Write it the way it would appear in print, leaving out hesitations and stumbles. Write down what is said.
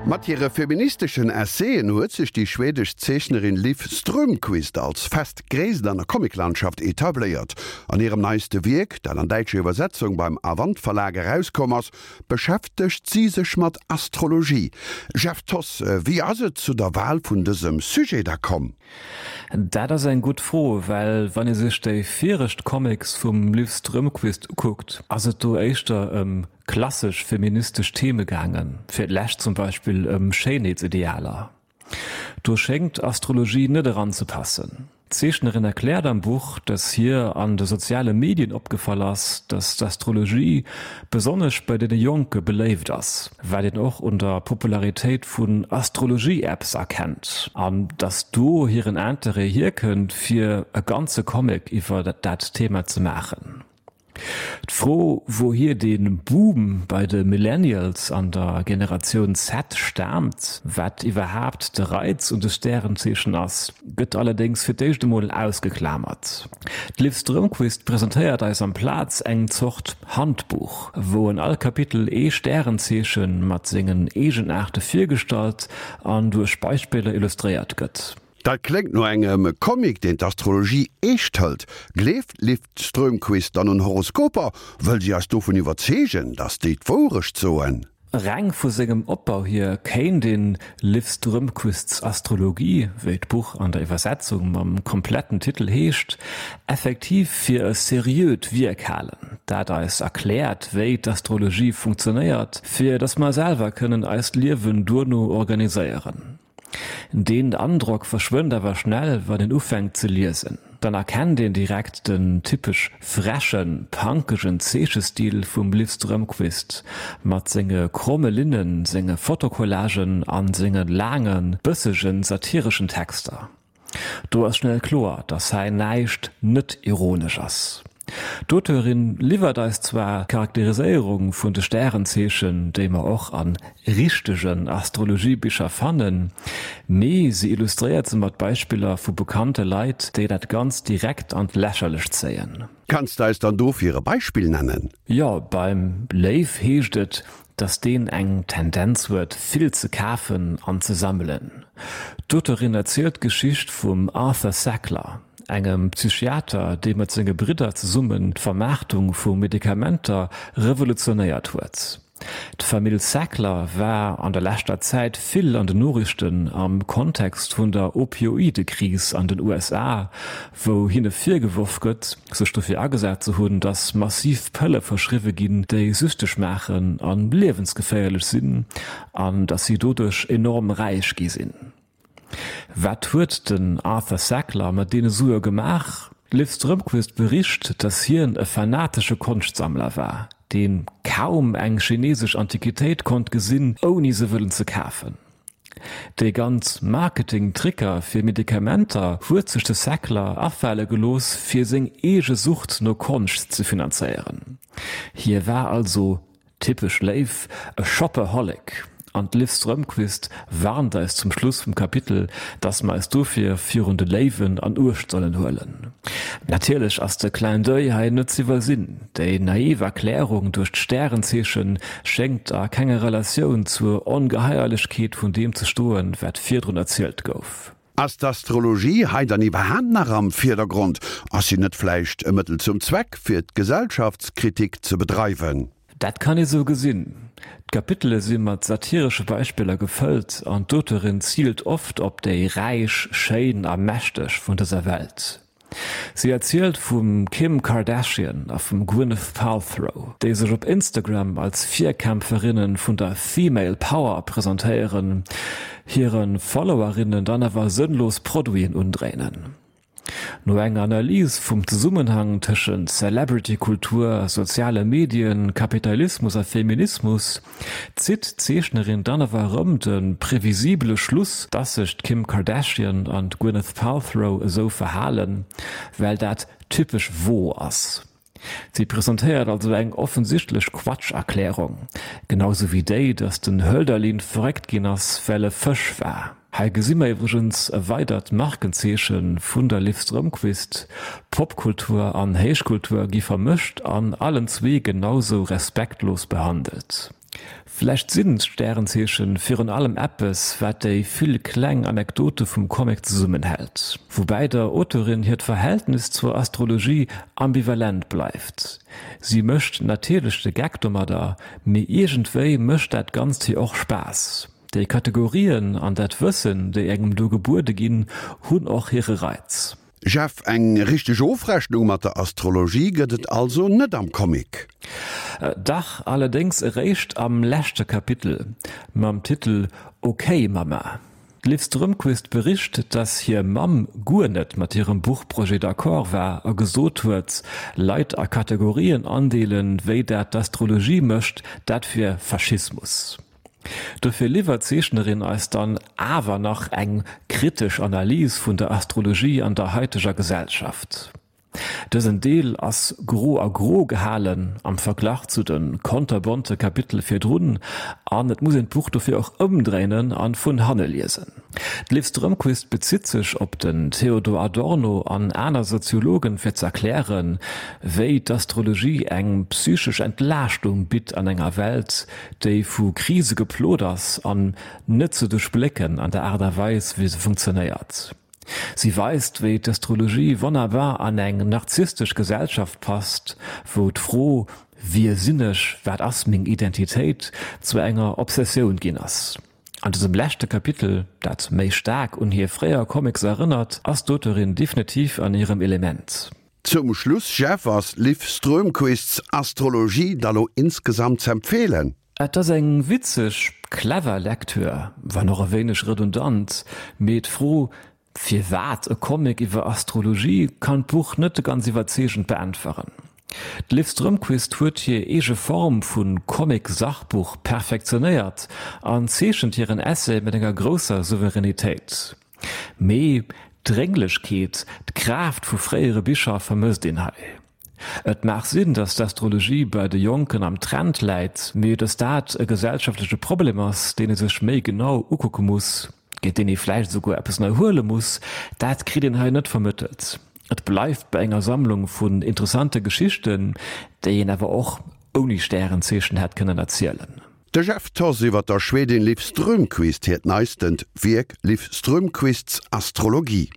Mat hire feministeschen Essaien huet sech déi schwedesch Zeechnerin Liv Strömquist als fest Gréisst an der Comiclandschaft etabléiert. An hirem neiste Wierk, dat an däitscher Iwwersetzung beim Avant Verlag erauskomm ass, beschäftegt si sech mat Astrologie. Jeff Thoss, wéi ass et zu der Wal vun dësem Sujet da komm? Dat ass eng gutt Fro, well wann ee sech déi viregt Comics vum Liv Strömquist ukuckt, ass et do éischter ëm klassesch feministesch Theme gaangen, fir d'lescht zum Beispill ëm Schéinheetsidealer. Do schéngt Astrologie net eranzepassen. D'Zeechnerin erkläert am Buch, dass hir an de soziale Medien opgefall ass, dass d'Astrologie besonnesch bei deene Jonke beléift ass, wat een och un der Popularitéit vun Astrologie-Apps erkennt, an dass do hiren Interêt hierkënnt, fir e ganze Comic iwwer dat Thema ze maachen. D'Fro, wouhier dee Boom bei de Millennials an der Generatioun Z staamt, wat iwwerhaapt de Reiz un de Stärenzeechen ass, gëtt allerdéngs fir d'éischt emol ausgeklamert. D'Liv Strömquist presentéiert eis amplaz eng Zort Handbuch, wou an all Kapitel ee Stärenzeeche mat sengen Eegenaarte virgestallt an duerch Beispiller illustréiert gëtt. Dat kléngt no engem Comic, deen d'Astrologie eescht hëlt. Gleeft d'Liv Strömquist dann un Horoskoper? Wëll si eis dovun iwwerzeegen, datt déi d'Wourecht soen? Reng vu sengem Opbau hier kéint een Liv Strömquists Astrologie, wéi d'Buch an der Iwwersetzung mam kompletten Titel heescht, effektiv fir e seriöt Wierk halen, dat eis erkläert, wéi d'Astrologie funktionéiert, fir datt mer selwer kënnen eist Liewen duerno organiséieren. Deen Androck verschwënnt awer schnell, wann een ufänkt ze liesen. Dann erkennt een direkt den typesch frechen, punkegen Zeechestil vum Liv Strömquist, mat senge kromme Linnen, senge Fotocollagen an senge laangen, bëssegen, satireschen Texter. Do ass schnell kloer, dass hei näischt net ironesch ass. D'Auteurin liwwert eis zwar d'Charakteriséierung vun de Stärenzeechen, déi mer och a richtegen Astrologiebicher fannen, mee se illustréiert se mat Beispiller vu bekannte Leit, déi dat Ganzt direkt an d'Lächerlecht zéien. Kanns de eis dann dofir e Beispill nennen? Jo, beim Léiw heescht et, dass deen eng Tendenz huet, vill ze kafen an ze sammelen. D'Auteurin erzielt d'Geschicht vum Arthur Sackler, engem Psychiater, dee mat senge Bridder zesummen d'Vermaartung vu Medikamenter revolutionéiert huet. D'Famill Sackler war an der leschter Zäit vill an den Noriichten am Kontext vun der Opioidekris an den USA, wou hinne virgeworf gëtt, sech dofir agesat ze hunn, datt massiv Pëlle verschriwwe ginn, déi süchteg maachen a liewensgeféierlech sinn, an datt si doduerch enorm räich gi sinn. Wat huet den Arthur Sackler mat deene Sue gemaach? D'Liv Strömquist bericht, datt hien e fanatesche Konschtsammler war, dee kaum eng chinesesch Antiquitéit konnt gesinn, ouni se wëllen ze kafen. Déi ganz Marketing-Tricker fir Medikamenter huet sech de Sackler afale gelooss, fir seng eege Sucht no Konscht ze finanzéieren. Hie war also, typesch Léiw, e Shopaholic. An d'Liv Strömquist warnt eis zum Schluss vum Kapitel, dass mer eis dofir virun de Léiwen an Uecht sollen huelen. Natierlech ass de Clin d'oeil hei net z'iwwersinn. Déi naiv Erklärung duerch d'Stärenzeeche schéngt a kenger Relatioun zur Ongeheierlechkeet vun deem ze stoen, wat virdrun erzielt gouf. Ass d'Astrologie hei dann iwwerhaapt nach am Virdergrond? Ass si net vläicht e Mëttel zum Zweck, fir d'Gesellschaftskritik ze bedreiwen? Dat kann ee sou gesinn. D'Kapitele si mat satiresche Beispiller gefëllt an d'Auteurin ziilt oft op déi Räich, Schéin a Mächteg vun dëser Welt. Si erzielt vum Kim Kardashian a vum Gwyneth Palthrow, déi sech op Instagram als Virkämpferinne vun der Female Power presentéieren, hire Followerinnen dann awer sënnlos Produiten undréinen. No enger Analys vum Zesummenhang tëschent Celebrity-Kultur, soziale Medien, Kapitalismus a Feminismus zitt d'Zeechnerin dann awer erëm de previsibele Schluss, dass sech d'Kim Kardashian an d'Gwyneth Palthrow esou verhalen, well dat typesch wo ass. Si presentéiert also eng offensichtlech Quatsch-Erklärung, genau sou wéi déi, dass den Hölderlin verréckt ginn ass, well e Fësch war. Hei gesi mer iwwregens e weidert Markenzeeche vun der Liv Strömquist, Popkultur an Héichkultur gi vermëscht an allen zwee genausou respektlos behandelt. Vläicht sinn d'Stärenzeechen virun allem eppes, wat déi vill kleng Anekdote vum Comic zesummenhält. Woubäi der Auteurin hiert Verhältnis zur Astrologie ambivalent bleift. Si mécht natierlech de Geck domadder, mee iergendwéi mécht dat Ganzt hir och Spaass. Déi Kategorien an dat Wëssen, déi engem do gebuede ginn, hunn och hire Reiz. Jeff, eng richteg Ofrechnung mat der Astrologie gëtt et also net am Comic? Dach, allerdéngs eréischt am leschte Kapitel mam Titel Ok Mama. D'Liv Strömquist bericht, dass hir Mamm guer net mat hirem Buchprojet d'accord war a gesot huet, Leit a Kategorien andeelen, wéi dat d'Astrologie mécht, dat wier Faschismus. Dofir liwwert d'Zeechnerin eis dann awer nach eng kritesch Analys vun der Astrologie an der haiteger Gesellschaft. Dësen Deel ass gro a gro gehalen am Verglach zu de konterbonte Kapitele virdrun an et muss een d'Buch dofir och ëmdréinen an vun hanne liesen. D'Liv Strömquist bezitt sech op den Theodor Adorno an aner Soziologen fir z'erklären, wéi d'Astrologie eng psychesch Entlaaschtung bitt an enger Welt, déi vu Krise geplot ass an net ze duerchblécken an der Aart a Weis, wéi se funktionéiert. Si weist, wéi d'Astrologie wonnerbar an eng narzisstesch Gesellschaft passt, wou d'Fro Wie sinn ech, wat ass meng Identitéit? zu enger Obsessioun ginn ass. An dësem leschte Kapitel, dat méi staark un hir fréier Comics erënnert, ass d'Auteurin definitiv an hirem Element. Zum Schluss, Jeff, ass Liv Strömquists Astrologie da lo insgesamt z'empfehlen? Et ass eng witzeg, clever Lektür, wann och e wéineg redundant, mee d'Fro firwat e Comic iwwer Astrologie kann d'Buch net ganz iwwerzeegend beäntweren. D'Liv Strömquist huet hir eege Form vu Comic-Sachbuch perfektionéiert an zeechent hiren Essay mat enger grousser Souveränitéit. Mee d'Drénglechkeet, d'Kraaft vu fréiere Bicher vermësst een hei. Et mag sinn, datt d'Astrologie bei de Jonken am Trend läit, mee datt dat e gesellschaftleche Problem ass, deen ee sech méi genau ukucke muss, géint deen ee vläicht esouguer eppes ënnerhuele muss, dat kritt een hei net vermëttelt. Et bleift bei enger Sammlung vun interessante Geschichten, déi een awer och ouni Stärenzeechen hätt kënnen erzielen. De Jeff Thoss iwwer der Schwedin Liv Strömquist hiert neistent Wierk Liv Strömquists Astrologie.